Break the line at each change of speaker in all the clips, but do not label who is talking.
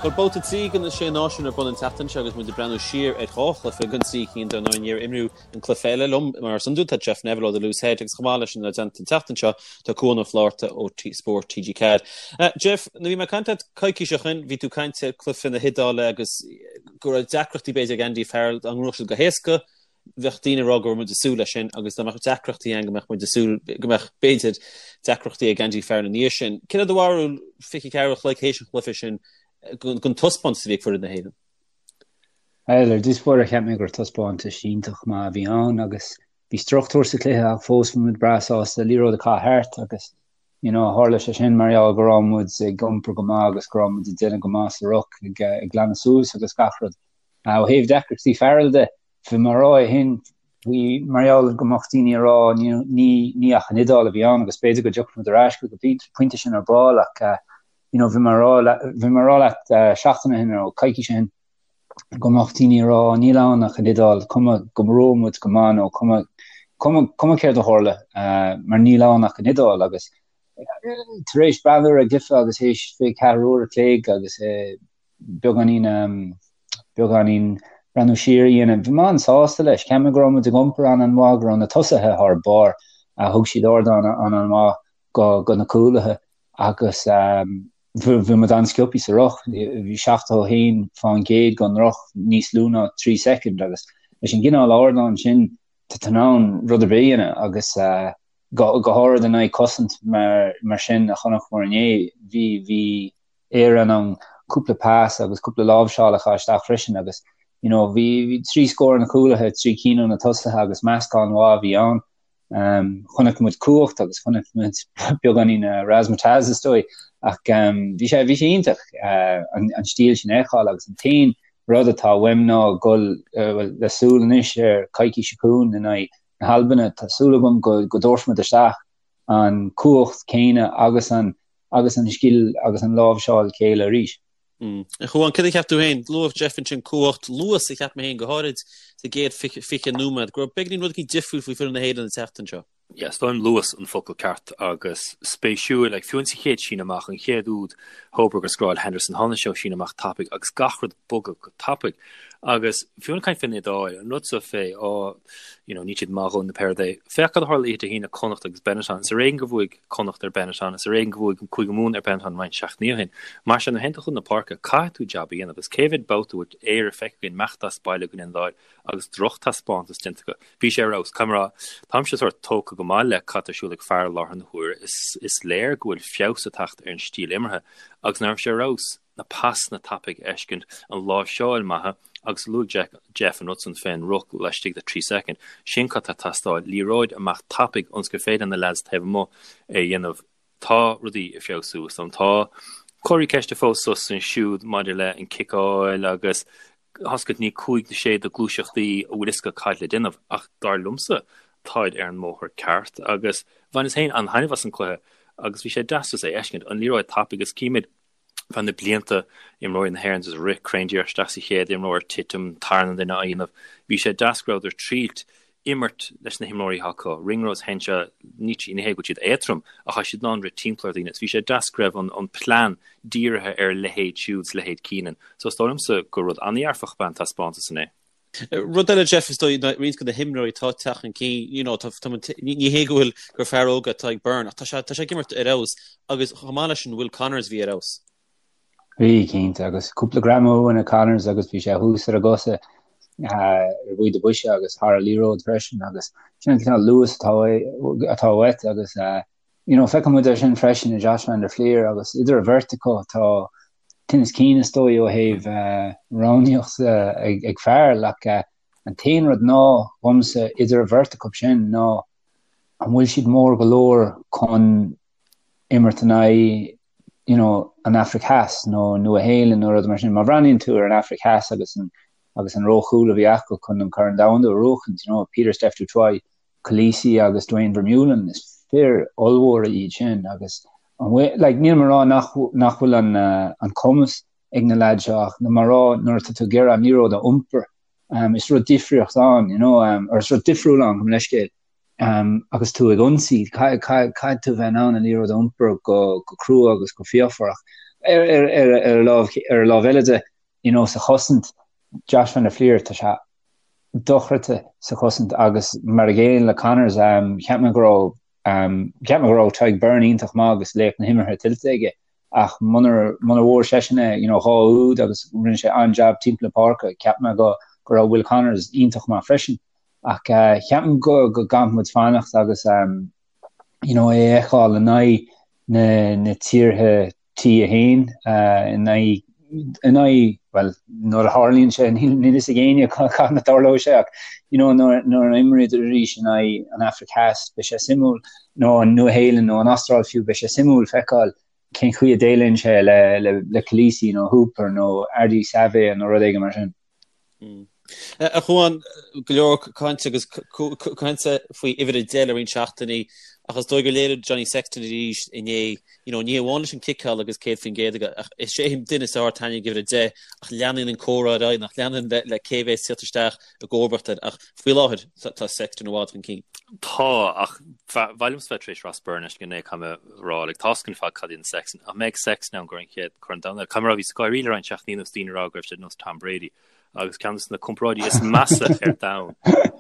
Bhuel, babhta 3 de na Sé Náisiún ar bun an tseachtain seo agus muid ag breathnú siar ar dhá chluiche den trí cinn dar ndóigh níor imríodh an cluiche eile liom. Mar is iondúil tá Jeff Neville ó The Loose Head agus chomh maith leis inár dteannta an tseachtain seo tá Cuan Ó Flatharta ó Spórt TG4. Jeff, nuair a bhí mé ag caint leat coicís ó shin bhí tú ag caint ar cluiche na hIodáile agus go raibh deacrachtaí b'fhéidir ag Andy Farrell dá ngnóthódh siad go héasca bheadh daoine ag rá go raibh muid ag súil leis sin agus dá mbeadh deacrachtaí ann go mbeadh muid ag súil go mbeadh, b'fhéidir, deacrachtaí ag Andy Farrell ina dhiaidh sin. Céard é do bharúil 24 uair a chloig théis an chluiche sin den taispeántas a bhí ag foireann na
hÉireann? Bhuel, ar dtús báire cheap mé gur taispeántas iontach maith a bhí ann agus bhí struchtúr sa chluiche ach fós bhí muid breá sásta liathróid a chaitheamh thart agus you know tharla sé sin mar gheall go raibh muid ag iompar go maith agus go raibh muid ag déanamh go maith sa ruc ag ag glanadh suas agus gach rud. Ó thaobh deacrachtaí Farrell de, bhí mé ag rá é shin faoi mar gheall go mbeadh daoine ag rá ní ní ach an Iodáil a bhí ann agus b'fhéidir go dtiocfaidh muid ar ais chuig an bpointe sin ar ball ach you know bhí mé ag rá bhí mé ag rá leat seachtain ó shin nó coicís ó shin go mbeadh daoine ag rá níl ann ach an Iodáil, cuma go raibh muid go maith nó cuma cuma cuma céard a tharla mar níl ann ach an Iodáil agus tar éis breathnú ar an gcluiche agus théis 24 uair a chloig agus beagáinín beagáinín breathnú siar a dhéanamh. Bhí mé an-sásta leis. Cheap mé go raibh muid ag iompar an-an-mhaith, go raibh na tosaithe thar barr. Thug siad ardán an-an-mhaith go go na cúlaithe agus bhí muid an-sciobthaí sa ruc. Bhí 71% den ruc níos lú ná 3 soicind agus leis an gcineál ardán sin tá tú in ann rud ar bith a dhéanamh agus go go háirid in aghaidh cosaint mar mar sin a chonaiceamar inné. Bhí bhí Éire in ann cúpla pas agus cúpla láimhseáil a chaitheamh isteach freisin agus you know bhí bhí trí scór ó na cúlaithe, trí cinn ó na tosaithe agus meascán mhaith a bhí ann. Um, chonaic muid cumhacht agus chonaic muid beagáinín uh, razzmatazz is dóigh ach um, bhí sé bhí sé iontach uh, an, an stíl sin a fheiceáil agus an t-aon rud atá uaim ná dul uh, well, le súil anois ar coicís seo chugainn in aghaidh na hAlbana tá súil agam go, go dtabharfaimid isteach an cumhacht céanna agus an agus an scil agus an láimhseáil chéile arís.
A Chuáin, céard a cheap tú féin? Luaigh Jeff ansin cumhacht, luas a cheap mé féin go háirid sa gcéad 20 nóiméad, go raibh beagáinín rud éicint difriúil faoi foireann na hÉireann an tseachtain seo.
Yeah, is dóigh liom luas an focal ceart agus spéisiúil, like, fiú insa chéad síneadh amach, an chéad úd, Hoberg a scóráil Henderson, tháinig sé ó síneadh amach tapaidh agus gach rud bogadh go tapaidh. Agus fiú ag caint fén Iodáil, an rud so fé, oh, you know, níl siad maith a dhóthain nó pé rud é. Féach cad a tharla oíche Dé hAoine, Connacht agus Benetton. Is ar éigean gur bhuaigh Connacht ar Benetton, is ar éigean gur bhuaigh Cúige Mumhan ar Benetton roinnt seachtainí ó shin. Mar sin, nuair a théann tú chun na páirce, caithfidh tú jab a dhéanamh. Agus cé mhéad babhta a bhfuil Éire feicthe againn imeacht as baile go dtí an Iodáil agus drochtaispeántas déanta acu. Bhí sé ar fheabhas. Caithfidh mé a rá, táimse sórt tógtha go maith le cad tá ar siúl ag Farrell i láthair na huaire. Is, is léir go bhfuil feabhas ag teacht ar an stíl imeartha. Agus nach raibh sé ar fheabhas? na pasanna tapaidh a fheiscint, an láimhseáil maith agus luaigh Jeff an rud san fén ruc laistigh de 3 soicind. Sin cad tá ag teastáil, liathróid amach tapaidh ionas gur féidir na leaids taobh amuigh é a dhéanamh. Tá rudaí ag feabhsú is dóigh liom. Tá comharthaí ceiste fós suas is ansiúd maidir le an ciceáil agus oscailt ní 5 nó 6 de gluaiseachtaí a bhfuil fhios acu cad le déanamh ach dar liomsa táid ar an mbóthar ceart agus bhaineas féin an-taitneamh as an cluiche agus bhí sé deas just é a fheiscint, an liathróid tapaidh agus címid feadh na blianta, imreoirí na hÉireann just rith cruinn díreach isteach sa chéad imreoir, titim, tarna duine á dhéanamh. Bhí sé deas go rabhadar triailt imirt leis na himreoirí atá acu. Ringrose, Henshaw, ní hé go bhfuil siad éadtrom ach tá siad in ann rith timpeall ar dhaoine. Is bhí sé deas go raibh an an plean dírithe ar a leithéid siúd 's leithéid Keenan. So is dóigh liomsa gur rud an-dhearfach ab ea an taispeántas inné.
Rud eile, Jeff, is dóigh, roinnt de na himreoirí atá ag teacht chun cinn, you know, tá, tá, ní hé go bhfuil gur fear óg atá ag Byrne, ach tá sé, tá sé ag imirt ar fheabhas agus chomh maith leis sin Will Connors bhí ar fheabhas.
Bhí, cinnte, agus cúpla greamú uaidh Connors agus bhí sé thuas ar a gcosa ar bhaoth do bhoise agus thar an liathróid freisin agus sin an cineál luas atá, atá uait agus you know, feiceann muid é sin freisin i Josh van der Flier agus idir an bheirt acu tá tinneas cinn is dóigh ó thaobh roghnaíocht ag Farrell ach an t-aon rud ná dhomsa idir an bheirt acu sin ná an bhfuil siad mór go leor chun imirt in aghaidh you know, an Afraic Theas nó Nua Shéalainn nó rud mar sin. Má bhreathnaíonn tú ar an Afraic Theas agus an agus an róchúl a bhí acu chun an Corn Domhanda a bhuachaint, you know, Pieter-Steph du Toit, Kolisi agus Duane Vermeulen, is fir ollmhóra iad sin agus an bhfuil, like, níl mé ag rá nach, nach bhfuil an, an cumas ag na leaids seo ach níl mé ag rá nuair atá tú ag iarraidh an liathróid a iompar, um, is rud difríocht ann, you know, um, or is rud difriúil ann, gabh mo leithscéal, um, agus tú ag ionsaí, caithfidh tú bheith in ann an liathróid a iompar go, go crua agus go fíochmhar ach. Ar ar ar lámh ar an lámh eile de, you know, sa chosaint, Josh van der Flier, tá sé dochreidte sa chosaint agus mar a gcéanna le Connors, cheap mé go raibh Cheap mé go raibh Tadhg Beirne iontach maith agus laoch na himeartha tuillte aige ach munar bhfuair seisean é, you know, 2 úd agus rinne sé an-jab timpeall na páirce, cheap mé go go raibh Will Connors iontach maith freisin. Ach ceapaim go go gcaithfidh muid fanacht agus you know, é a fheiceáil in aghaidh na na tíortha T1 in aghaidh in aghaidh, bhuel, nuair a tharlaíonn sé, níl fhios ag éinne cathain a tarlóidh sé ach you know nuair nuair a imríodar arís in aghaidh an Afraic Theas beidh sé suimiúil, nó an Nua-Shéalainn nó an Astráil fiú, beidh sé suimiúil feiceáil cén chaoi a déileann sé le le le Kolisi nó Hooper nó Ardie Savea nó rud éigin mar sin.
A Chuáin, go leor cainte agus cainte faoi uimhir 10 le roinnt seachtainí ach is dóigh gur léirigh Johnny Sexton arís inné, you know, ní amháin leis an ciceáil agus 100% aige ach is é an duine is fearr atá ag uimhir 10 ach leanann an comhrá ar aghaidh nach leanann le, le cé bheas ag tíocht isteach i gcomharbacht air ach faoi láthair tá Sexton i bhfad chun cinn.
Tá, ach ba mhaith liomsa bheith tar éis Ross Byrne leis go inné caithfidh mé a rá, like, tá's againn ar fad cad é an Sexton, ach mbeidh Sexton ann gur an chéad Corn Domhanda. Caithfidh mé a rá, bhíos ag gáirí le roinnt seachtainí anuas daoine ag rá go raibh sé nós Tom Brady. Agus ceann de na comparáidí is measa ar domhan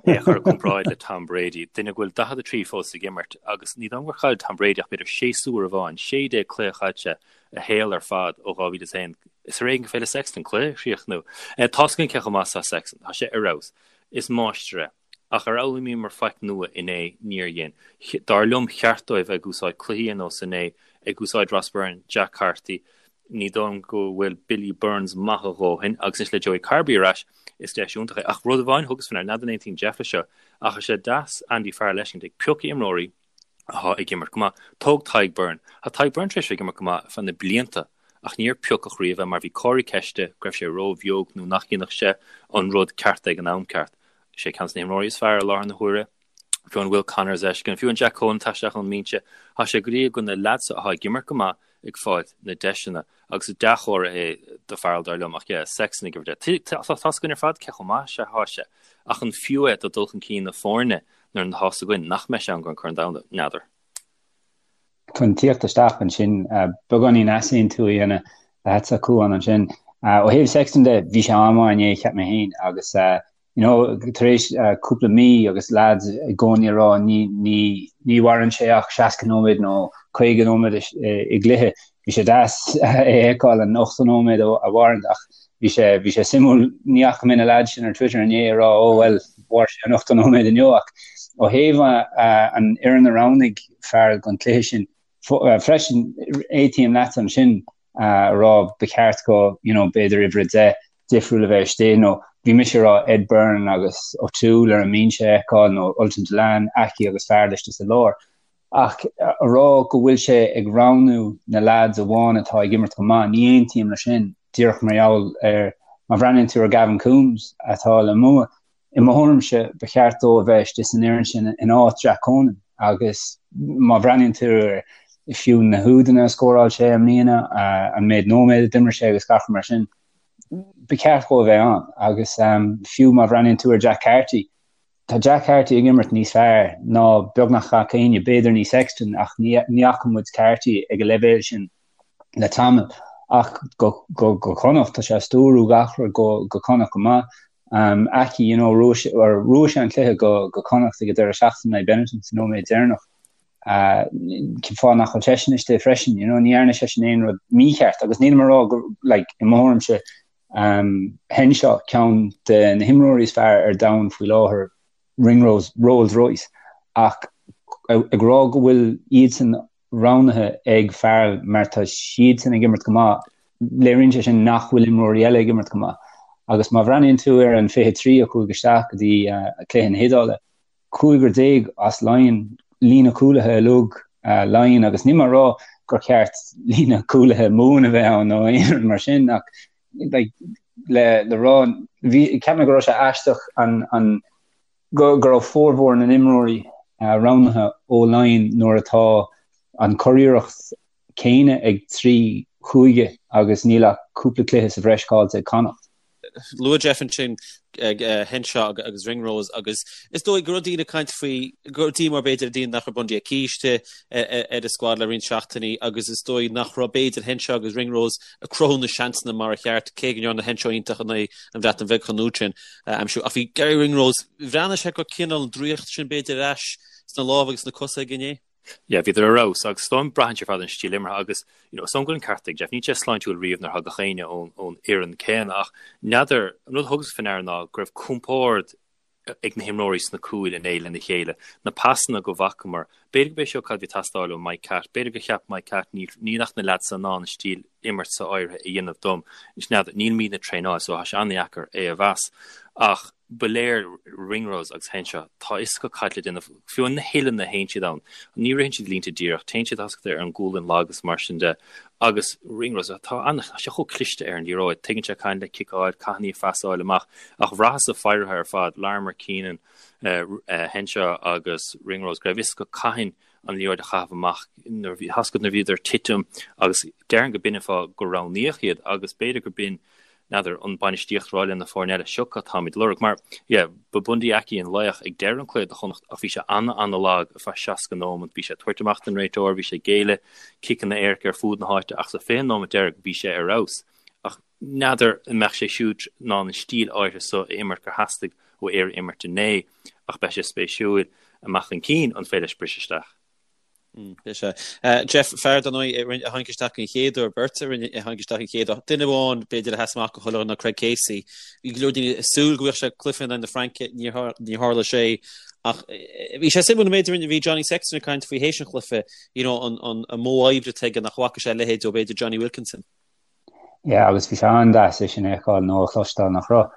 é a chur i gcomparáid le Tom Brady, duine go bhfuil 43 fós ag imirt, agus ní dóigh liom gur chaill Tom Brady ach b'fhéidir séasúr amháin, 16 cluiche chaith sé a shaol ar fad ó 2001. Is ar éigean gur féidir le Sexton cluiche a chríochnú. Tá's againn cé chomh maith is atá Sexton. Tá sé ar fheabhas. Is máistir é. Ach ar fhoghlaimíomar faic nua inné? Níor dhein. Dar liom cheart dóibh ag úsáid cluichí ar nós inné, ag úsáid Ross Byrne, Jack Carty, ní dóigh liom go bhfuil Billy Burns maith a dhóthain, agus anois le Joey Carbery ar ais, is deis iontach é. Ach rud amháin thugas faoi ndeara, n'fheadar an aontaíonn Jeff leis seo, ach is é deas Andy Farrell a fheiscint ag piocadh imreoirí atá ag imirt go maith. Tóg Tadhg Beirne. Tá Tadhg Beirne tar éis bheith ag imirt go maith ar feadh na blianta ach níor piocadh riamh é mar bhí comharthaí ceiste go raibh sé ró-bheag nó nach ndéanfadh sé an rud ceart ag an am ceart. Is é ceann de na himreoirí is fearr i láthair na huaire. Fiú an Will Connors a fheiscint, fiú an Jack Conan atá isteach ón mbinse, tá sé go léir go na leaids atá ag imirt go maith ag fáilt na deiseanna agus is dea-chomhartha é do Farrell dar liom ach yeah, Sexton ag uimhir 10. Tá tá's againn ar fad cé chomh maith is atá sé ach an fiú é do dul chun cinn na foirne nuair atá 'fhios againn nach mbeidh sé ann don Chorn Domhanda? N'fheadar.
Chun tíocht isteach ansin, beagáinín easaontú a dhéanamh leatsa, a Chuáin, ansin. Ó thaobh Sexton de, bhí sé an-mhaith inné, cheap mé féin, agus you know, tar éis cúpla mí agus lads i gcónaí ag rá ní, ní, ní mhaireann sé ach 60 nóiméad nó 50 nóiméad i gcluiche, bhí sé deas é a fheiceáil an 80 nóiméad a mhaireann ach bhí sé, bhí sé suimiúil, ní fhaca mé na lads sin ar Twitter inné ag rá oh well, mhair sé an 80 nóiméad inniu ach ó thaobh an fhoireann a roghnaigh Farrell don chluiche sin freisin, aontaím leat ansin. a rá ba cheart go you know b'fhéidir uimhir 10 difriúil a bheith istigh nó bhí mise ag rá Ed Byrne agus O'Toole ar an mbinse a fheiceáil nó Ultan Dillane, Aki agus Farrell istigh sa lár. Ach a rá go bhfuil sé ag roghnú na lads amháin atá ag imirt go maith, ní aontaím leis sin díreach mar gheall ar má bhreathnaíonn tú ar Gavin Coombes atá le Mumha, I mo thuairimse, ba cheart dó a bheith istigh san fhoireann sin in áit Jack Conan agus má bhreathnaíonn tú ar fiú na húdanna a scóráil sé i mbliana, an méid nóiméad a d'imir sé agus gach rud mar sin, ba cheart dó a bheith ann. Agus fiú má bhreathnaíonn tú ar Jack Carty, tá Jack Carty ag imirt níos fearr ná beagnach gach éinne, b'fhéidir ní Sexton ach ní fhaca muid Carty ag an leibhéal sin le tamall. Ach go Connacht, tá sé ag stiúrú gach rud go Connacht go maith. Aki, you know, bhuaigh sé an cluiche go go Connacht ag an deireadh seachtaine in aghaidh Benetton sa nóiméad deireanach. Cén fáth nach bhfuil seisean istigh freisin, you know, ní dhearna seisean aon rud mícheart agus nílim ag rá go, like, i mo thuairimse, um, Henshaw ceann de na himreoirí is fearr ar domhan faoi láthair, Ringrose, Rolls Royce, ach ag rá go bhfuil iadsan roghnaithe ag Farrell mar tá siadsan ag imirt go maith, léiríonn sé sin nach bhfuil imreoirí eile ag imirt go maith. Agus má bhreathnaíonn tú ar an 23 a chuaigh isteach go dtí cluiche na hIodáile, cúigear déag as Laighin, líne cúlaithe uilig Laighin agus níl mé ag rá gur cheart líne cúlaithe Mumhan a bheith ann nó aon rud mar sin ach like, le, le rá, bhí, cheap mé go raibh sé aisteach an, an, go raibh formhór na n-imreoirí roghnaithe ó Laighin nuair atá an churiarracht céanna ag 3 chúige agus níl ach cúpla cluiche sa bhreis caillte ag Connacht.
Luaigh Jeff ansin Henshaw agus Ringrose agus is dóigh go raibh daoine ag caint faoi go raibh díomá b'fhéidir ar daoine nach raibh Bundee Aki istigh ar an squad le roinnt seachtainí agus is dóigh nach raibh b'fhéidir Henshaw agus Ringrose ag cruthú na seansanna mar a cheart cé go ndearna Henshaw iontach in aghaidh an Bhreatain Bheag chomh luath sin a aimsiú. Ach bhí Garry Ringrose, bhreathnaigh sé go cineál an draíocht sin b'fhéidir ar ais sna lámha agus sna cosa aige inné.
Yeah, bhíodar ar fheabhas agus is dóigh liom braitheann sé ar fad an stíl imeartha agus you know, is dóigh liom go bhfuil an ceart ag Jeff, níl sé sláintiúil riamh nuair a thagadh éinne ón, ón fhoireann céanna ach n'fheadar, an rud a thugas faoi ndeara ná go raibh compord ag na himreoirí sna cúil inné lena chéile, na pasanna go bhfacamar, b'fhéidir gurb é seo cad a bhí ag teastáil ó Mike Catt, b'fhéidir gur cheap Mike Catt níl, níl ach na leaids in ann an stíl imirt so áirithe a dhéanamh dom, n'fheadar, nílimidne ag traenáil so tá sé an-dheacair é a mheas ach. ba léir Ringrose agus Henshaw, tá a fhios acu cad le déanamh, fiú na huilleanna a théann siad ann, ní ritheann siad línte díreach, téann siad thascta ar an gcúlainn lag agus mar sin de, agus Ringrose, tá an, tá sé chomh cliste ar an liathróid, tuigeann sé cathain le ciceáil, cathain í a phasáil amach, ach bhraitheas-sa féirithe ar fad, Larmour, Keenan, Henshaw agus Ringrose, go raibh a fhios acu cathain an liathróid a chaitheamh amach nuair a bhí, thascta nuair a bhíodar ag titim agus déarfainn go b'in an fáth gur roghnaíodh iad agus b'fhéidir gur b'in n'fheadar, an bainistíocht rá le na foirne eile, seo cad táimid ag lorg. Mar, yeah, ba Bundee Aki an laoch ag deireadh an cluiche do Chonnacht ach bhí sé ana-ana-lag ar feadh 60 nóimeant. Bhí sé ag tabhairt amach don réiteoir, bhí sé ag géilleadh ciceanna éirice ar fuaid na háite ach sa 20 nóimeant deiridh bhí sé ar fheabhas. Ach n'fheadar an mbeadh sé siúd in ann an stíl áirithe so a imirt gur theastaigh ó Éire imirt inné ach beidh sé spéisiúil amach chun cinn an féidir leis briseadh isteach.
Beidh sé. Jeff, fear dar ndóigh a tháinig isteach an chéad uair, beirt a rinne a tháinig isteach an chéad uair. Duine amháin b'fhéidir a sheas amach go chuile ná Craig Casey. Bhí go leor daoine ag súil go bhfaigheadh sé cluiche in aghaidh na Fraince, níor tharla sé. Ach bhí sé suimiúil an méid a bhí Johnny Sexton ag caint faoi théis an chluiche, you know, an an modh oibre atá aige nach bhfaca sé a leithéid ó b'fhéidir Jonny Wilkinson.
Yeah, agus bhí sé an-deas é sin a fheiceáil nó a chloisteáil nach raibh.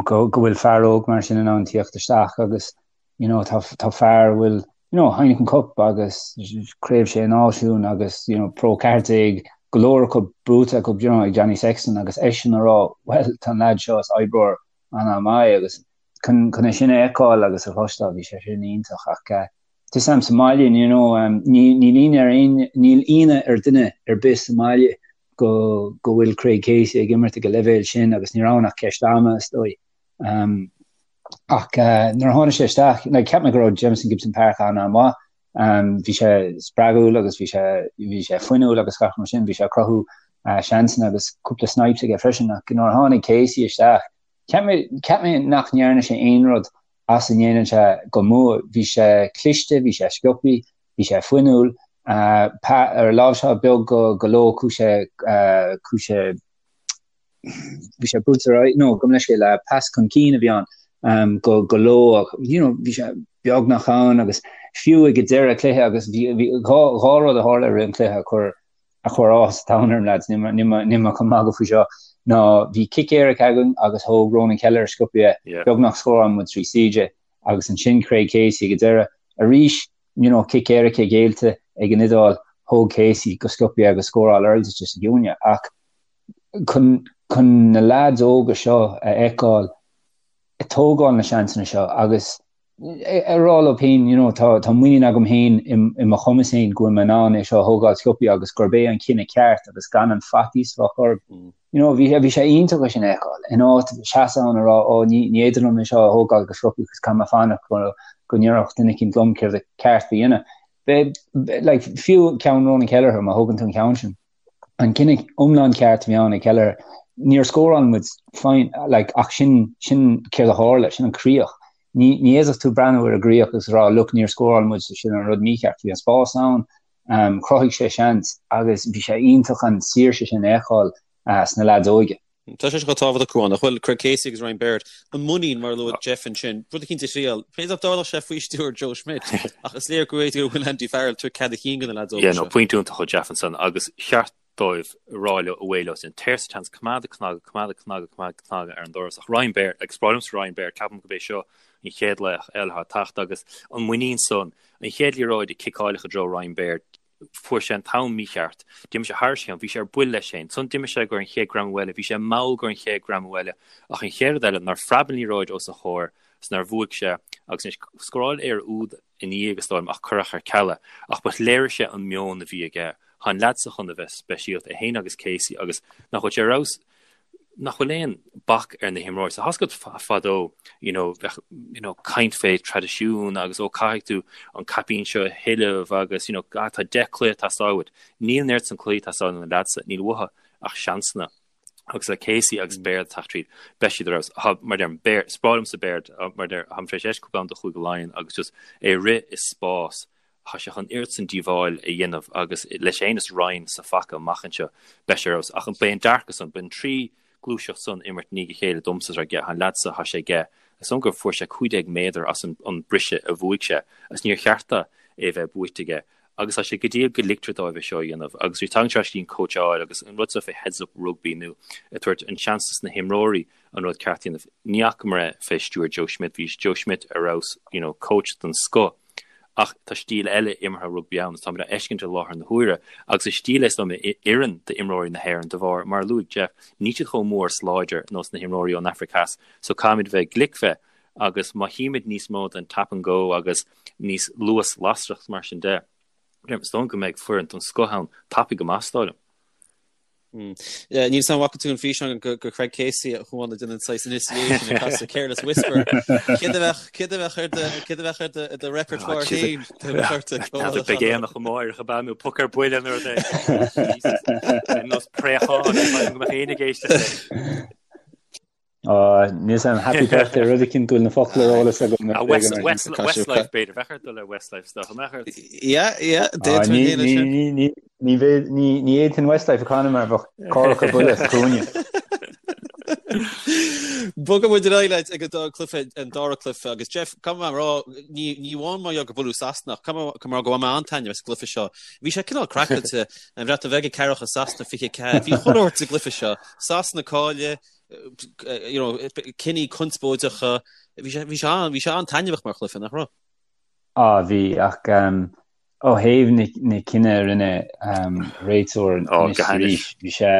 Go go bhfuil fear óg mar sin in ann tíocht isteach agus you know, tá, tá fear a bhfuil, you know, Heineken Cup agus Craobh Sé Náisiún agus, you know, Pro 14, go leor acu buaite acu, you know, ag Johnny Sexton agus eisean a rá, well, tá an lad seo is oibreoir an-mhaith agus chun, chun é sin a fheiceáil agus a chloisteáil, bhí sé sin iontach ach uh, tá a fhios a'm sa mbaile, you know, um, ní, níl ionadh ar aon, níl ionadh ar duine ar bith sa mbaile go, go bhfuil Craig Casey ag imirt ag an leibhéal sin agus ní raibh ann ach ceist ama is dóigh. Um, ach nuair a tháinig sé isteach, like, cheap mé go raibh Jamison Gibson Park an-an-mhaith. Um, bhí sé spreagúil agus bhí sé bhí sé fuinniúil agus gach mar sin, bhí sé ag cruthú uh, seansanna agus cúpla snipes aige freisin ach nuair a tháinig Casey isteach, cheap mé, cheap mé nach ndearna sé aon rud as a ndéanann sé go maith. Bhí sé cliste, bhí sé sciobtha, bhí sé fuinniúil, uh, pa, ar láimhseáil beag go, go Lowe chuaigh sé, uh, chuaigh sé bhí sé buailte ar aghaidh, no, gabh mo leithscéal, pas chun cinn a bhí ann go go Lowe ach you know bhí sé beagnach ann agus fiú ag an deireadh cluiche agus bhí bhí dhá dhá rud a tharla i rith an chluiche a chuir a chuir áthas an domhain orm lads, níl mé níl mé níl mé chun magadh faoi seo, ná bhí cic éirice againn agus thóg Ronan Kelleher sciobtha é, Yeah. beagnach scóráil muid trí CJ agus ansin Craig Casey ag an deireadh arís you know cic éirice géillte ag an Iodáil, thóg Casey go sciobtha é agus scóráil Earls sa gciúine ach chun chun na leaids óga seo a fheiceáil ag tógáil na seansanna seo agus ag rá leo féin you know tá tá muinín agam féin i mo chumas féin go bhfuil mé in ann é seo a thógáil sciobtha agus gurb é an cinneadh ceart agus gan an faitíos a bheith orthu. You know bhí bhí sé iontach é sin a fheiceáil in áit seasamh ann a rá ó ní ní féidir liom é seo a thógáil go sciobtha agus caithfidh mé fanacht go go ndéarfadh duine eicínt liom céard a ceart a dhéanamh. Be like fiú ceann Ronan Kelleher má thógann tú an ceann sin. an cinneadh iomlán ceart a bhí ann ag Kelleher. Níor scóráil muid, fine, like, ach sin, sin céard a tharla, sin an críoch. Ní, ní fhéadfadh tú breathnú ar an gcríoch agus rá, look, níor scóráil muid, so sin an rud mícheart. Bhí an spás ann, um, chruthaigh sé seans agus bhí sé iontach an saoirse sin a fheiceáil uh, sna leaids óige.
Tá sé seo chomh tábhachtach, Cuán, nach bhfuil Craig Casey agus Ryan Baird, an muinín, mar a luaigh Jeff ansin, rud eicínt a thriail. B'fhéidir nach dtarlódh sé faoi stiúir Joe Schmidt, ach is léir go bhféidir go bhfuil Andy Farrell ag tabhairt cead a chinn do na leaids óga
Yeah, no, seo. pointe iontach ó Jeff ansan agus cheart dóibh rá leo away leo sin. Téir sa tseans, coimeád ag cnagadh, coimeád ag cnagadh, coimeád ag cnagadh ar an doras. Ach Ryan Baird, agus is breá liomsa Ryan Baird, ceapaim gurb é seo an chéad laoch eile atá ag teacht agus an muinín san, an chéad liathróid a ciceáileadh i dtreo Ryan Baird, Fuair sé an t-am mícheart. D'imigh sé thairis a cheann. Bhí sé ar buile leis féin. Ansan d'imigh sé go an chéad greamú eile. Bhí sé mall go an chéad greamú eile. Ach an chéad rud eile, nár phreab an liathróid os a chomhair is nár bhuaigh sé. Agus anois, scóráil Éire úd ina dhiaidh, is dóigh liom, ach cuireadh ar ceal é. Ach but léirigh sé an meon a bhí aige. Tá an leaid so chun a bheith speisialta, é féin agus Casey, agus nach bhfuil sé ar fheabhas? nach bhfuil aon bac ar na himreoirí. So tá's agat fadó, you know, bheadh, you know, caint fé traidisiún agus ó caithfidh tú an caipín seo a thuilleamh agus, you know, ah, tá 10 cluiche ag teastáil uait. Níl an oiread san cluichí ag teastáil ó na leaids, níl uathu ach seansanna. Agus le Casey agus Baird ag teacht tríd, beidh siad ar fheabhas. Tá, mar deirim, Baird, is breá liomsa Baird, mar deir, táim tar éis éisteacht cúpla am do Chúige Laighean agus just é ag rith i spás, Tá sé chun oiread san díobháil a dhéanamh agus leis féin is Ryan sa phaca amach anseo, beidh sé ar fheabhas. Ach beidh an dearcadh san, beidh an trí gluaiseacht san imirt i ndiaidh a chéile domsa is aige, tá an leaid so, tá sé aige, is dóigh gur fuair sé 15 méadar as an briseadh a bhuaigh sé agus níor cheart dó é bheith buaite aige. Agus tá sé go diail go ligtear dóibh é seo a dhéanamh. Agus bhí tagann sé ar ais go dtí an cóitseáil agus an rud seo fé heads up rugby nó ag tabhairt an seans dos na himreoirí an rud ceart a dhéanamh. Ní fhacamar é fé stiúir Joe Schmidt, bhí Joe Schmidt ar fheabhas, you know, coach den scoth. Ach tá stíl eile imeartha rugbaí ann, is táimid á fheiscint i láthair na huaire, agus is stíl é is dóigh liom a oireann d'imreoirí na hÉireann de bharr, mar a luaigh Jeff, níl siad chomh mór is láidir nós na himreoirí ón Afraic Theas, so caithfimid bheith glic fé, agus má chímid níos mó den tap and go agus níos luas lasrach mar sin de, is dóigh liom go mbeidh foireann den scoth ann tapaidh go maith, is dóigh liom.
Níl 'fhios a'm an bhfaca tú an físeán go Craig Casey a chuan ag déanamh an saghas initiation ag casadh Careless Whisper. Céard a bheadh céard a bheadh ar do céard a bheadh ar do ar do repertoire féin
N'fheadar beidh aonach amárach ab ea nó poc ar buile nó rud éigin. Nós préachán go mbeadh éinne ag éisteacht leis.
Níl 'fhios a'm happy birthday rud eicínt go bhfuil na focla ar eolas agam.
Ah, West, West, Westlife b'fhéidir, bheadh ort dul ar Westlife is dócha, mbeadh ort?
Yeah, yeah, d'fhéadfainn
a dhéanamh sin. Ní, ní, ní, ní, ní fhéadfainn Westlife a chanadh mar bheadh cárthach ar buile sa chúinne.
Bogfaidh muid ar aghaidh leis ag an dá cluiche, an dara cluiche agus Jeff, caithfidh mé a rá, ní, ní amháin mar gheall gur buaileadh Sasana ach caithfidh mé a rá go bhain mé an-taitneamh as an gcluiche seo. Bhí sé cineál craiceáilte, an Bhreatain Bheag ag 4 Sasana 24. Bhí chuile shórt sa gcluiche seo. Sasana cailleadh, you know, cinní conspóideacha, bhí sé, bhí sé an, bhí sé an-taitneamhach mar chluiche, nach raibh?
Á, bhí, ach um, ó thaobh na, na cinneadh a rinne um, réiteoir
Ó,
anois
go hainnis.
arís, bhí sé,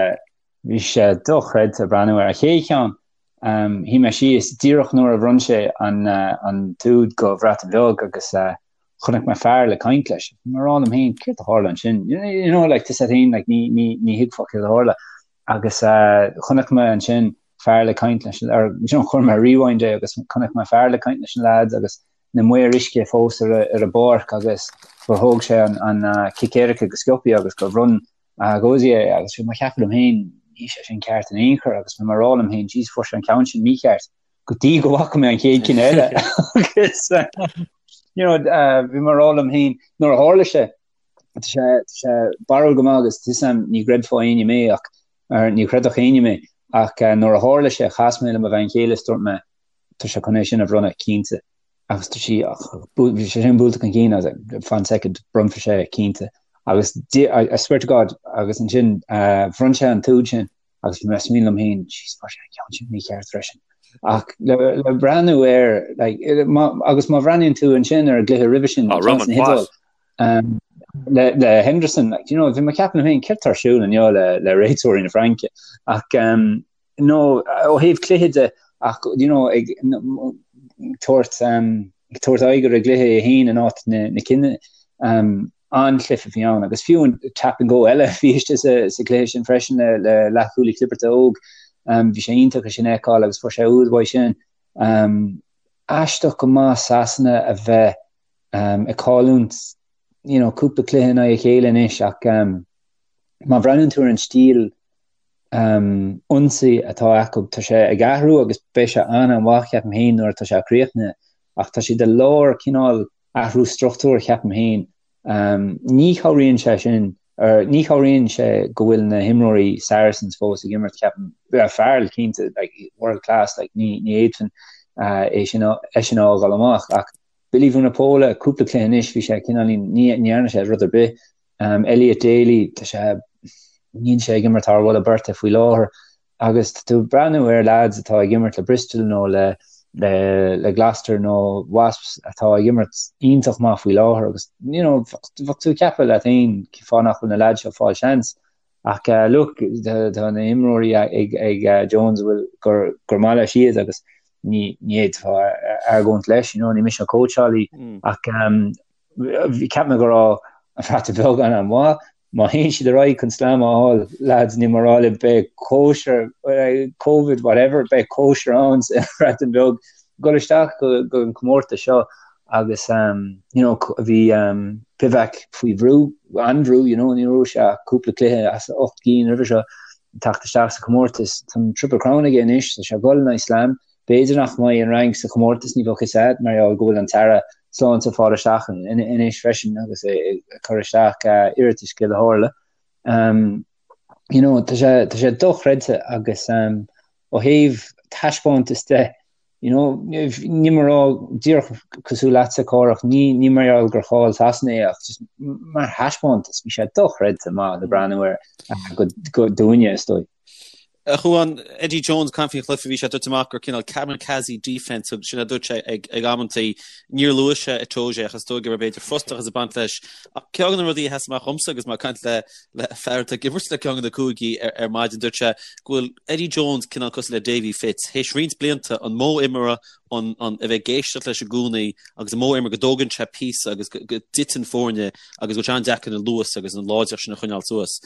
bhí sé dochreidte breathnú air. An chéad cheann, um, shuigh mé síos díreach nuair a bhronn sé an, uh, an t-úd go Bhreatain Bheag agus uh, chonaic mé fear le caint leis. Bhí mé ag rá liom féin, céard a tharla ansin? You know, you know, like, tá 'fhios a'd féin, like, ní, ní, ní thuigfeá céard a tharla. Agus chonaic mé ansin fear le caint leis, or you know, chuir mé rewind é agus chonaic mé fear le caint leis na lads agus na maoir uisce fós ar an bpáirc agus gur thóg sé an, an cic éirice go sciobthaí agus gur bhronn Gozi é agus bhí mé ag ceapadh liom féin, níl sé sin ceart in aon chor agus bhí mé ag rá liom féin, jeez, fuair sé an ceann sin mícheart go dtí go bhfaca mé an chéad cinn eile agus you know, uh, bhí mé ag rá liom féin nuair a tharla sé Tá sé tá sé barrúil go maith agus tá 'fhios a'm ní gcreidfeadh éinne mé ach or ní chreidfeadh éinne mé ach nuair a tharla sé chas mé le mo bhean chéile is dúirt mé tá sé chun é sin a bhronnadh cinnte agus tá sí ach bhí sé sin buailte chun cinn I was like fan second bronnfaidh sé cinnte agus I, I swear to God agus ansin uh, bhronn sé an t-úd sin agus bhí mé ag smaoineamh liom féin jeez fuair sé an ceann sin mícheart freisin. Ach le, le breathnú air like, má, agus má bhreathnaíonn tú ansin ar an gcluiche roimhe sin
oh, Romain
Poite. Um, le, le Henderson, like, you know, bhí mé ag ceapadh liom féin céard atá ar siúl inniu le, le réiteoirí na Fraince. Ach um, no, ó thaobh cluiche de, ach you know, ag tabhairt um, ag tabhairt aghaidh ar an gcluiche é féin in áit na, na cinne um, an-chluiche a bhí ann agus fiú an tap and go eile a bhí istigh sa, sa chluiche sin freisin le, le leathchúlaí clibirte óg. Um, bhí sé iontach é sin a fheiceáil agus fuair sé úd uaidh sin. Um, aisteach go maith Sasana a bheith um, ag cailliúint you know, cúpla cluiche in aghaidh a chéile anois ach um, má bhreathnaíonn tú ar an stíl um, ionsaí atá acu tá sé ag athrú agus beidh sé an-mhaith ceapaim féin nuair atá sé críochnaithe ach tá siad i lár cineál athrú struchtúir ceapaim féin. Um, ní chabhraíonn sé sin or ní chabhraíonn sé go bhfuil na himreoirí Saracens fós ag imirt ceapaim Farrell cinnte like, world class like, ní, ní fhéadfainn uh, é sin é sin a fhágáil amach ach Billy Vunipola, cúpla cluiche anois, bhí sé cineáilín, ní dhearna sé rud ar bith. Elliot Daly, tá sé, níl sé ag imirt thar mholadh beirte faoi láthair. Agus tá tú ag breathnú ar lads atá ag imirt le Bristol nó le le le Gloucester nó Wasps atá ag imirt iontach maith faoi láthair agus you know bheadh tú ag ceapadh leat féin cén fáth nach bhfuil na lads seo ag fáil seans. Ach look, tá na himreoirí ag ag Jones a bhfuil gur gur maith leis iad agus ní ní fhéadfá argóint leis, you know, ní mise an cóitseálaí ach um, bhí ceap mé go raibh an Bhreatain Bheag an-mhaith. Má théann siad ar aghaidh chun slam a fháil, lads, níl mé ag rá libh, beidh cóisir, Covid, whatever, beidh cóisir ann sa Bhreatain Bheag. Dul isteach go an comórtas seo agus you know bhí Pivac faoi bhrú, an-bhrú, you know, níor bhuaigh sé ach cúpla cluiche as 8 gcinn roimhe seo teacht isteach sa chomórtas. Tá an Triple Crown aige anois, tá sé ag dul in aghaidh slam. B'fhéidir nach mbeidh an Fhrainc sa chomórtas, ní bheadh a fhios agat, mar gheall go bhfuil an tAire Sláinte ag fáil isteach anois freisin agus é ag cur isteach iarratais céard a tharla. You know, tá sé, tá sé dochreidte agus ó thaobh taispeántas de, you know, níl mé ag rá díreach cosúil leatsa Cárthach, ní, ní mar gheall gur chaill Sasana é ach just mar thaispeántas, bhí sé dochreidte maith le breathnú air go, go dúinne is dóigh.
A Chuáin, Eddie Jones, caint faoin chluiche, bhí sé dúirt amach gur cineál kamikaze defence, sin a dúirt sé ag ag amantaí. Níor luaigh sé Itoje ach is dóigh go raibh b'fhéidir frustrachas ag baint leis. Ach ceann de na rudaí a sheas amach dhomsa agus mé ag caint le le fear atá ag imirt le ceann de na cúigí ar ar maidin, dúirt sé go bhfuil Eddie Jones cineál cosúil le Davy Fitz, théis roinnt blianta an modh imeartha, an an a bheith ag éisteacht leis i gcónaí agus an modh imeartha go dtógann sé píosa agus go go dtiteann foirne agus go bhfuil sé an-deacair an luas agus an láidreacht sin a choinneáil suas.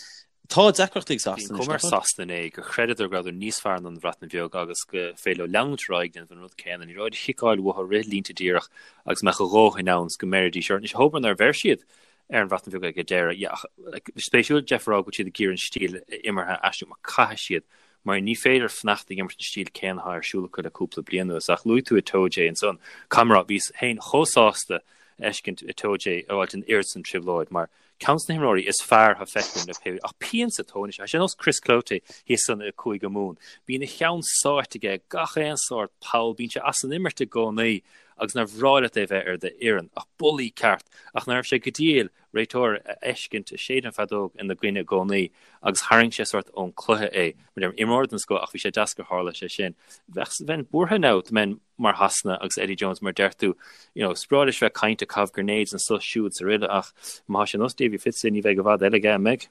Tá deacrachtaí ag
Sasana
anois,
Bhí an chuma ar Sasana inné gur chreideadar go rabhadar níos fearr ná an Bhreatain Bheag agus go féidir leo leanúint ar aghaidh ag déanamh an rud céanna. Ní raibh de chiceáil uathu rith línte díreach agus mbeadh a dhóthain ann 's go mbeiridís orthu. Anois, abair nár bheir siad ar an Bhreatain Bheag ag an deireadh. Yeah, ach like, spéisiúil Jeff a rá go bhfuil siad ag iarraidh an stíl imeartha a aistriú mar caithfidh siad mar ní féidir fanacht ag imirt an stíl céanna atá ar siúl acu le cúpla bliain anuas. Ach luaigh tú Itoje ansan. Caithfidh mé a rá, bhíos féin chomh sásta a fheiscint Itoje a fháilt an oiread san trioblóid mar Ceann de na himreoirí is fearr atá feicthe agam le pé ach pian sa tóin é. Tá sé ar nós Chris Cloete thíos san i Cúige Mumhan. Bíonn a cheann sáite aige i gach aon sórt poll, bíonn sé as an imirt i gcónaí agus nár bhreá leat é bheith ar d'fhoireann. Ach bulaí ceart. Ach ná raibh sé go diail réiteoir a fheiscint ag séideadh an feadóg ina gcoinne i gcónaí agus tharraing sé sórt ón cluiche é. Mar deirim, imreoir den scoth ach bhí sé deas gur tharla sé sin. Bheadh, bheinn buartha now dá mbeinn mar Shasana agus Eddie Jones mar deir tú, you know, is breá leis bheith ag caint ag caitheamh grenades anso siúd 's aroile ach má tá sé nós Davy Fitz ní bheidh i bhfad eile aige, an mbeidh?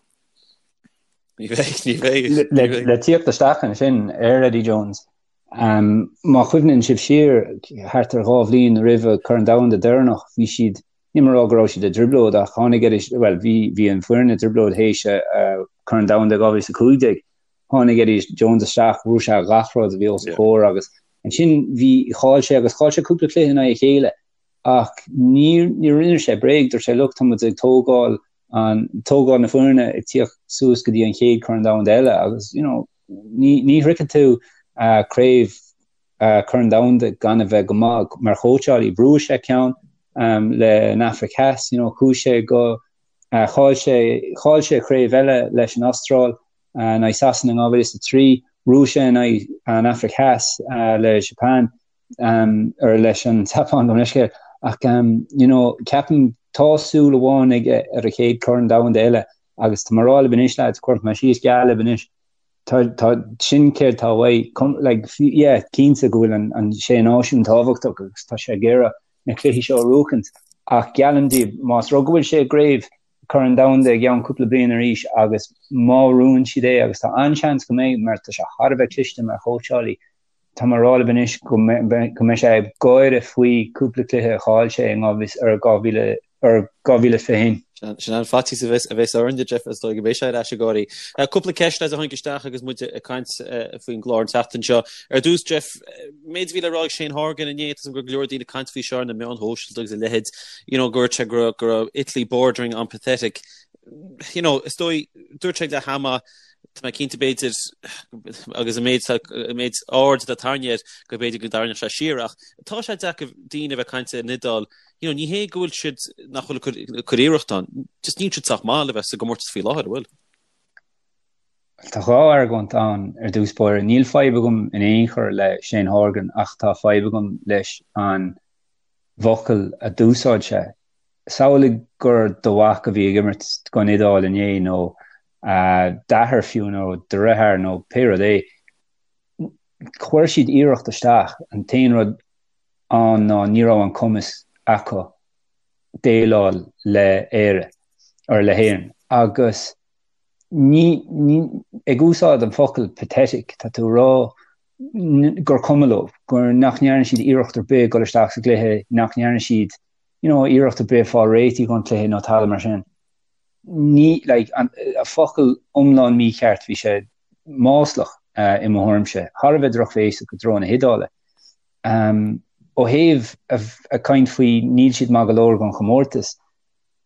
Ní bheidh, ní bheidh.
Le, le tíocht isteach ansin ar Eddie Jones, um, má chuimhníonn sibh siar thart ar 2 bhliain roimh Corn Domhanda deireanach, bhí siad, níl mé ag rá go raibh siad i dtrioblóid ach tháinig Eddie, well, bhí, bhí an foireann i dtrioblóid théis uh, Corn Domhanda 2015, tháinig Eddie Jones isteach, bhrúigh sé gach rud a bhí os a chomhair agus Ansin bhí, chaill sé agus chaill sé cúpla cluiche in aghaidh a chéile ach ní, ní rinne sé bréag, dúirt sé look tá muid ag tógáil an, tógáil na foirne ag tíocht suas go dtí an chéad Chorn Domhanda eile agus you know ní, ní shroicheann tú uh, craobh uh, Corn Domhanda gan a bheith go maith mar chóitseálaí. Bhuaigh sé ceann um, le an Afraic Theas, you know, chuaigh sé go uh, chaill sé, chaill sé craobh eile leis an Astráil in aghaidh Sasana in 2003, bhuaigh sé in aghaidh an Afraic Theas le Japan, or leis an tSeapáin gabh mo leithscéal. Ach you know, ceapaim tá súil amháin aige ar a chéad Chorn Domhanda eile agus tá mé ag rá libh anois lads, cuirfidh mé síos geall libh anois, tá, tá, sin céard tá uaidh, like, yeah, cinnte go bhfuil an, an Sé Náisiún tábhachtach agus tá sé ag iarraidh na cluichí seo a bhuachaint ach geallaim daoibh, más rud go bhfuil sé i gcraobh Corn Domhanda i gceann cúpla bliain arís agus má bhuann siad é, agus tá an-seans go mbeidh mar tá sé thar a bheith cliste mar chóitseálaí, tá mé ag rá libh anois go mbeidh sé ag gáire faoi cúpla cluiche a chaill sé in 2021.
Sin an faitíos a bheas orainn, Jeff, is dóigh go mbeidh sé ar ais ag gáirí. Cúpla ceist a tháinig isteach agus muid ag caint faoin gclár an tseachtain seo. Ar dtús, Jeff, méid a bhí le rá ag Shane Horgan inné, tá a fhios agam go raibh go leor daoine ag caint faoi seo ar na meáin shóisialta agus a leithéid, you know, go dúirt sé go raibh Italy bordering on pathetic. You know, is dóigh, dúirt sé ag leath ama, tá mé cinnte b'fhéidir, agus an méid, an méid aird atá tarraingthe air, go b'fhéidir go dtarraingeodh sé siar ach tá sé deacair daoine a bheith ag caint ar an Iodáil, you know, ní hé go bhfuil siad nach bhfuil ag cur iarracht ann, just níl siad sách maith le bheith sa gcomórtas faoi láthair, an bhfuil?
Tá dhá argóint ann ar dtús báire. Níl fadhb agam in aon chor le Shane Horgan ach tá fadhb agam leis an bhfocal a d'úsáid sé. Samhlaigh gur do mhac a bhí ag imirt don Iodáil inné nó d'athair fiú nó do dheartháir nó pé rud é. Chuir siad iarracht isteach, an t-aon rud ann ná ní raibh an cumas acu déileáil le Éire or le hÉirinn agus ní, ní, ag úsáid an focal pathetic, tá tú ag rá gur cuma leo, gur nach ndearna siad iarracht ar bith dul isteach sa gcluiche, nach ndearna siad, you know, iarracht ar bith fáil réitithe don chluiche nó tada mar sin. Ní, like, an focal iomlán mícheart, bhí sé maslach i mo thuairimse, thar a bheith drochbhéasach i dtreo na hIodáile. Ó thaobh ag caint faoi níl siad maith go leor don chomórtas,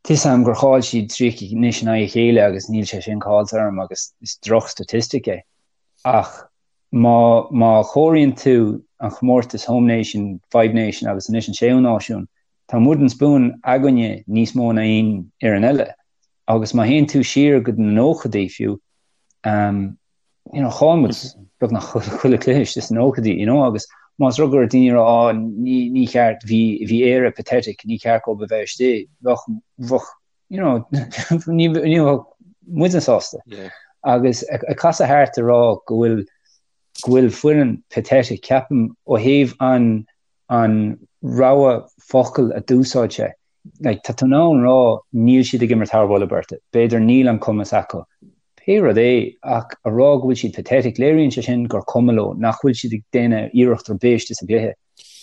tá 'fhios a'm gur chaill siad 30 anois in aghaidh a chéile agus níl sé sin caillte orm agus is droch-statistic é. Ach má má chomhairíonn tú an chomórtas Home Nation, Five Nation agus anois an Séú Náisiún, tá an Wooden Spoon againne níos mó ná aon fhoireann eile. Agus má théann tú siar go na nóchaidí fiú, you know, chaill muid beagnach chuile cluiche istigh sna nóchaidí, you know, agus más rud go raibh daoine ag rá, oh, ní, ní cheart, bhí, bhí Éire pathetic, ní ceart dóibh a bheith istigh, bheadh, bheadh, you know, ní, ní bheadh muidne sásta. Yeah. Agus ag, ag casadh thart ag rá go bhfuil, go bhfuil foireann pathetic, ceapaim ó thaobh an, an rogha focal a d'úsáid sé, like, tá tú in ann rá níl siad ag imirt thar mholadh beirte, b'fhéidir níl an cumas acu, pé rud é, ach a rá go bhfuil siad pathetic, léiríonn sé sin gur cuma leo, nach bhfuil siad ag déanamh iarracht ar bith istigh sa gcluiche.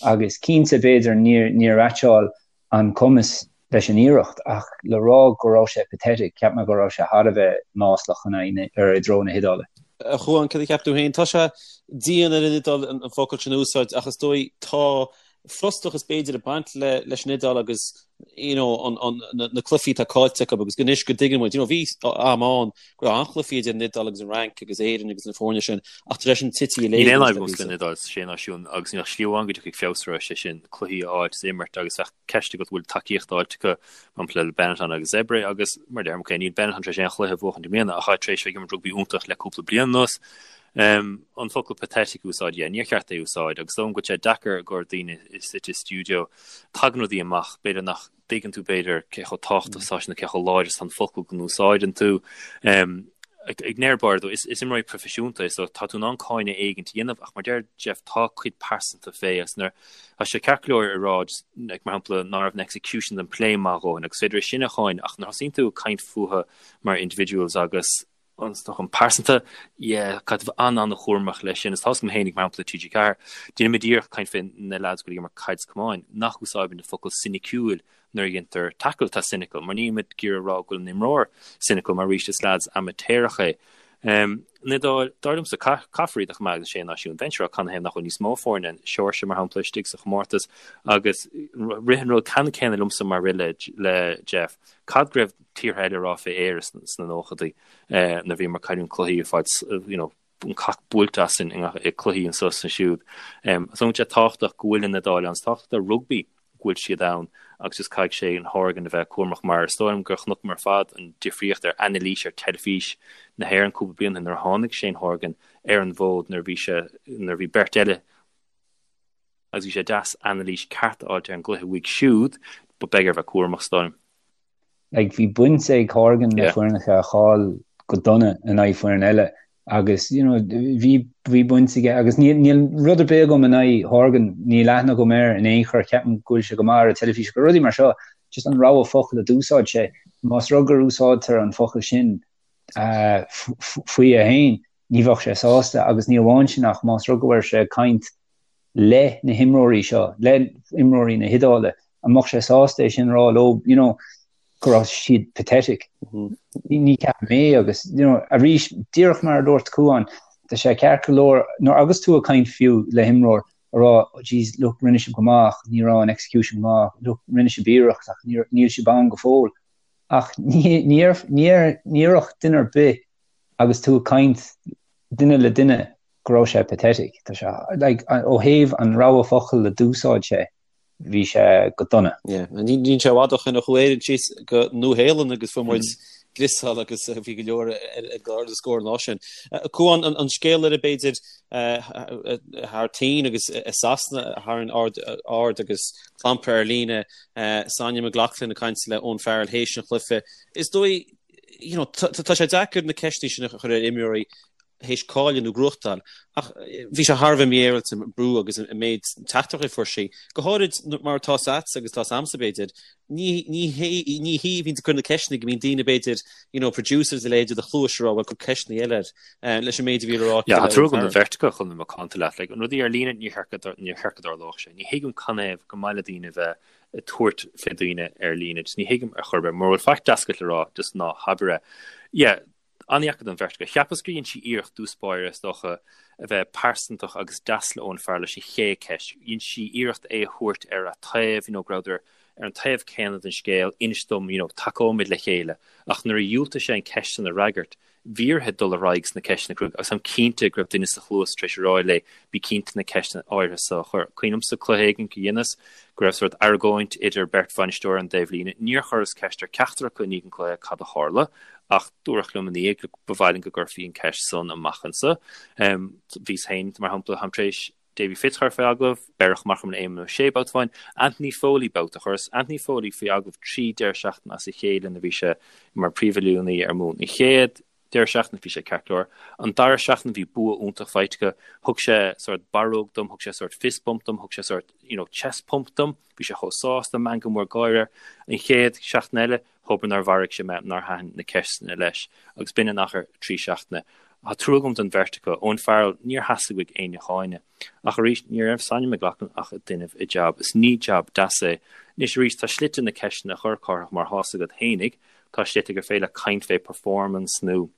Agus cinnte, b'fhéidir, níor, níor mheaitseáil an cumas leis an iarracht, ach le rá go raibh sé pathetic, cheap mé go raibh sé thar a bheith maslach in aghaidh na, ar, i dtreo na hIodáile.
A Chuáin, cad a cheap tú féin? Tá sé dian ar an Iodáil an focal sin a úsáid, ach is dóigh tá frustrachas b'fhéidir ag baint le leis an Iodáil agus you know an an na na cluichí atá caillte acu agus anois go dtuigeann muid you know bhí am ann go raibh an-chluichí idir an Iodáil agus an Fhrainc agus Éirinn agus na foirne sin ach tar éis an tití
i Níl aon fhadhb agamsa leis an Iodáil sa Sé Náisiún agus níl ach slí amháin go dtiocfaidh feabhas orthu sé sin cluichí a fháilt is imirt agus bheadh ceist agat bhfuil tacaíocht fháilte acu mar shampla le Benetton agus Zebre agus mar deirim ok níl Benetton tar éis aon chluiche a bhuachaint i mbliana ach tá tar éis bheith ag imirt rugbaí iontach le cúpla bliain anuas. An focal pathetic a úsáid, yeah, níor cheart é a úsáid agus is dóigh liom go bhfuil sé deacair i gcomhair daoine suite i stiúideo. Tagann rudaí amach, b'fhéidir nach dtuigeann tú b'fhéidir cé chomh tábhachtach is atá sé nó cé chomh láidir is atá an focal go n-úsáideann tú. I ndeireadh báire though, is imreoirí proifisiúnta é so tá tú in ann cáineadh éigint a dhéanamh ach mar deir Jeff tá cuid pearsanta fé agus nuair tá sé ceart go leor a rá just like mar shampla ná raibh an execution den play maith a dhóthain agus is féidir é sin a cháineadh ach nuair a thosaíonn tú ag caint fúthu mar individuals agus an stoc pearsanta, yeah, caithfidh tú bheith an-an-chúramach leis sin. Is tá's agam féinig, mar shampla, TG4, déanaimid iarracht caint fé na lads go bhfuil ag imirt caid is camáin, nach úsáidimid an focal soiniciúil nuair a dhéantar tackle atá cynical, mar nílimid ag iarraidh a rá go bhfuil an imreoir cynical, mar arís is lads amaitéarach é. Um, an Iodáil, dar liomsa, caithfear iad a choimeád sna Sé Náisiún. Bheinnse ag rá canathaobh nach bhfuil níos mó foirne, Seoirsia, mar shampla, istigh sa chomórtas, agus rith an rud ceannann céanna liomsa mar rith le, le Jeff. Cad go raibh tíortha eile ag rá fé Éire sna nóchadaí nuair a bhíomar ag cailliúint cluichí ag fáil you know, an cac buailte asainn i cluichí anso is ansiúd. So tá sé tábhachtach go bhfuil an Iodáil ann, is tábhachtach do rugbaí go bhfuil siad ann agus just caithfidh Shane Horgan a bheith cúramach mar is dóigh liom gur chonaiceamar ar fad an difríocht ar anailís ar teilifís na hÉireann cúpla bliain ó shin nuair a tháinig Shane Horgan ar an bhfód nuair a bhí sé nuair a bhí beirt eile agus bhí sé deas anailís ceart a fháilt ar an gcluiche uaidh siúd but beidh air bheith cúramach is dóigh liom.
Like bhí baint ag Horgan le foirneacha a chaill go dona in aghaidh foireann eile agus you know bhí bhí baint aige agus níl níl rud ar bith agam in aghaidh Horgan, níl aithne agam air in aon chor, ceapaim go bhfuil sé go maith ar an teilifís agus rudaí mar seo, just an rogha focal a d'úsáid sé, más rud gur úsáidtear an focal sin uh, faoi é féin, ní bheadh sé sásta agus ní amháin sin ach más rud go raibh sé ag caint le na himreoirí seo, le imreoirí na hIodáile, an mbeadh sé sásta é sin a rá leo, you know, go raibh siad pathetic. Ní ceapaim é agus, you know, arís, díreach mar a dúirt Cuán, tá sé ceart go leor, nuair agus tú ag caint fiú le himreoir, a rá, oh jeez, look, rinne sibh go maith ach ní raibh an execution go maith, look, rinne sibh iarracht ach níl sibh ann go fóill. Ach ní déarfadh duine ar bith agus tú ag caint duine le duine go raibh sé pathetic. Tá sé, like, ó thaobh an rogha focal a d'úsáid sé, bhí sé go dona.
Yeah, níl sé i bhfad ó shin a chuaigh Éirinn síos go Nua Shéalainn agus fuair muid griosáil agus bhí go leor ag ardú scór an lá sin. Cuán, an scéal eile b'fhéidir thar toinn agus i Sasana a tharraing aird agus clampar ar líne, Sonny McLaughlin ag caint le Owen Farrell théis an chluiche. Is dóigh, you know, tá sé deacair na ceisteanna sin a chur ar imreoirí théis cailleadh nó gnóthachtáil, ach bhí sé thar a bheith mífhéaráilte an brú agus an méid teachtaireachtaí a fuair sí, go háirid mar tá 's agatsa agus tá 's a'msa b'fhéidir, ní ní hé ní hí a bhíonn ag cur na ceisteanna go mbíonn daoine b'fhéidir you know producers a leithéid i do chluais ag rá bhuel cuir ceisteanna eile air leis an méid a bhí le rá
Yeah, tá trua agam don bheirt acu chun bheith macánta leat, like, an rudaí ar líne níor cheart go níor cheart go dtarlódh sé. Ní thuigim canathaobh gur maith le daoine bheith. ag tabhairt fé daoine ar líne. Just ní thuigim ar chor ar bith. Mura bhfuil faic deas agat le rá, just ná habair é. Yeah, an-dheacair don bheirt acu. Cheapas gur dhein sí iarracht dtús báire, is dócha, a bheith pearsantach agus deas le Owen Farrell leis an chéad cheist. Dhein sí iarracht é a thabhairt ar a taobh, you know, go rabhadar ar an taobh céanna den scéal, inis dom, you know, tacóimid le chéile. Ach nuair a dhiúltaigh sé an ceist san a fhreagairt, bhí uirthi dul ar aghaidh sna ceisteanna cruaidh agus táim cinnte go raibh duine sa chluas tar éis a rá léi bí cinnte na ceisteanna áirithe so a chur. Cuimhin liomsa cluiche éigin go dheineas go raibh sórt argóint idir beirt bhainisteoir ar an dtaobhlíne. Níor chuireas ceist ar ceachtar acu i ndiaidh an cluiche cad a tharla ach dúradh liom ina dhiaidh ba mhaith linn go gcuirfí an ceist san amach anso. Bhíos féin, mar shampla, táim tar éis Davy Fitz a chur faoi agallamh, beireadh amach orm le Éamonn Ó Sé babhta amháin, Anthony Foley babhta. Chuireas Anthony Foley faoi agallamh 3 deireadh seachtaine as a chéile nuair a bhí sé mar príomhoiliúnaí ar Mumhain. An chéad deireadh seachtaine bhí sé ceart go leor. An dara seachtain bhí bua iontach faighte acu. Thug sé sórt barróg dom, thug sé sórt fist bump dom, thug sé sórt, you know, chest pump dom. Bhí sé chomh sásta, meangadh mór gáire air. An chéad seachtain eile, Thobair nár mharaigh sé mé, nár thaitin na ceisteanna leis, agus b'in in achar 3 seachtaine. Tá trua agam don bheirt acu. Owen Farrell, níor theastaigh uaidh éinne a cháineadh. Ach arís, ní raibh Sonny McLaughlin ach ag déanamh a jab, is ní jab deas é. Anois arís, tá slite na ceisteanna a chur, Cárthach, mar tá's agat fhéinig, tá slite gur féidir leat caint fé performance nó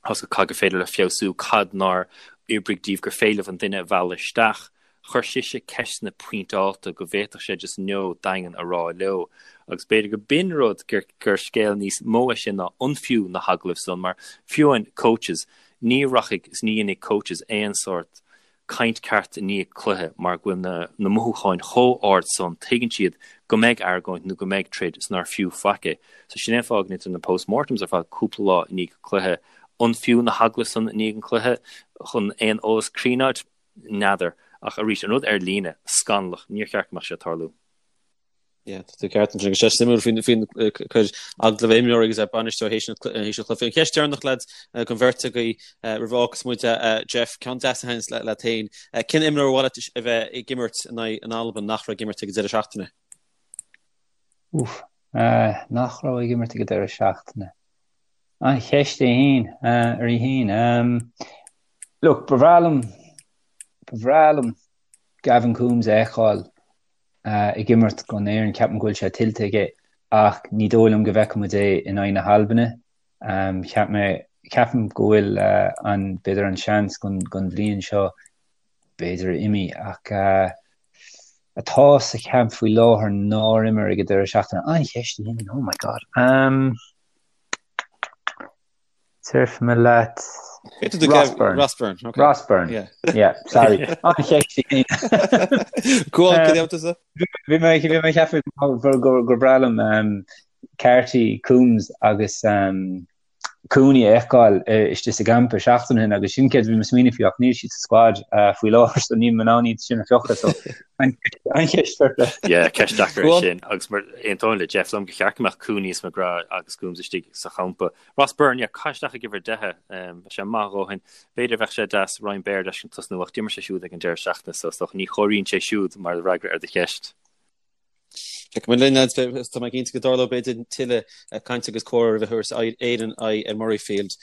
tá's agat cad gur féidir le feabhsú, cad nár oibrigh díobh gur féidir libh an duine a mhealladh isteach. Chuir sise ceisteanna pointeálta go bhféadfadh sé just no daingean a rá leo. Agus b'fhéidir go b'in rud gur gur scéal níos mó é sin ná an fiú na hagallaimh san mar fiú amháin coaches, ní rachaidh is ní dhéanfaidh coaches aon sórt caint ceart i ndiaidh cluiche mar go bhfuil na na mothúcháin chomh ard san, tuigeann siad go mbeidh argóint nó go mbeidh troid is nár fiú faic é. So sin é an fáth go ndéantar na post-mortems ar fad cúpla lá i ndiaidh cluiche. An fiú na hagallaimh san i ndiaidh an cluiche chun aon eolas cruinn a fháilt? N'fheadar. Ach arís, an rud ar líne, scannalach, níor cheart go mbeadh sé ag tarlú.
Yeah, tá tú ceart ansin. Agus sé suimiúil faoin faoin cur agallamh imreoir agus bainisteoir théis an théis an chluiche. An cheist deireanach lads don bheirt agaibh roimh a fhágfas muid Jeff, ceann deas a thaitníonns leat féin. Cén imreoir ar mhaith leat a bheith ag imirt in aghaidh an Albain nach raibh ag imirt ag an deireadh seachtaine?
Úf, nach raibh ag imirt ag an deireadh seachtaine. An cheist é féin, ar í féin. Look, ba bhreá liom, ba bhreá liom Gavin Coombes a fheiceáil ag imirt don Éirinn, ceapaim go bhfuil sé tuillte aige ach ní dóigh liom go bhfeicfidh muid é in aghaidh na hAlbaine. Cheap mé, ceapaim go bhfuil an, b'fhéidir an seans don, don bhliain seo b'fhéidir imithe ach atá sa champ faoi láthair nár imir ag an deireadh seachtaine. An-cheist í sin, oh my God. Déarfaidh mé leat
Ross Byrne. Ross Byrne,
okay. Ross Byrne. Yeah. Yeah, sorry. An-cheist í.
Go on, cad é tusa?
Bhí mé bhí mé ag ceapadh gur gur breá liom um, Carty, Coombes agus um, Cooney a fheiceáil istigh sa gcampa seachtain ó shin agus sin céard a bhí mé ag smaoineamh faoi ach níl siad sa squad uh, faoi láthair so níl mé in ann iad sin a phiocadh so an-cheist fair play.
Yeah, ceist deacair é sin agus mar aontóinn le Jeff liom gur cheart go mbeadh Cooney is McGrath agus Coombes istigh sa champa. Ross Byrne, yeah, caith isteach ag uimhir 10 bheadh sé maith a dhóthain. B'fhéidir bheadh sé deas Ryan Baird a fheiscint tosnú ach d'imir sé siúd ag an deireadh seachtaine so is dócha ní chomhairíonn sé siúd mar fhreagra ar do cheist.
Feicfidh muid linn, lads, tá mé cinnte go dtarlóidh b'fhéidir tuilleadh cainte agus comhrá roimh a thabharfas Éirinn aghaidh ar Murrayfield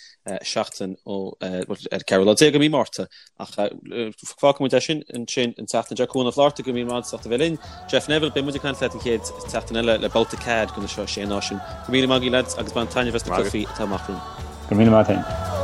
seachtain ó ar 14 lá de mhí Márta. Ach fágfaidh muid é sin ansin an tseachtain seo. Cuan Ó Flatharta, go raibh míle maith agat as ucht a bheith linn. Jeff Neville, beidh muid ag caint leat an chéad tseachtain eile le babhta cead de na seo Sé Náisiún. Go raibh míle maith agaibh lads agus bain taitneamh as na cluichí atá amach romhainn.
Go raibh míle maith agat.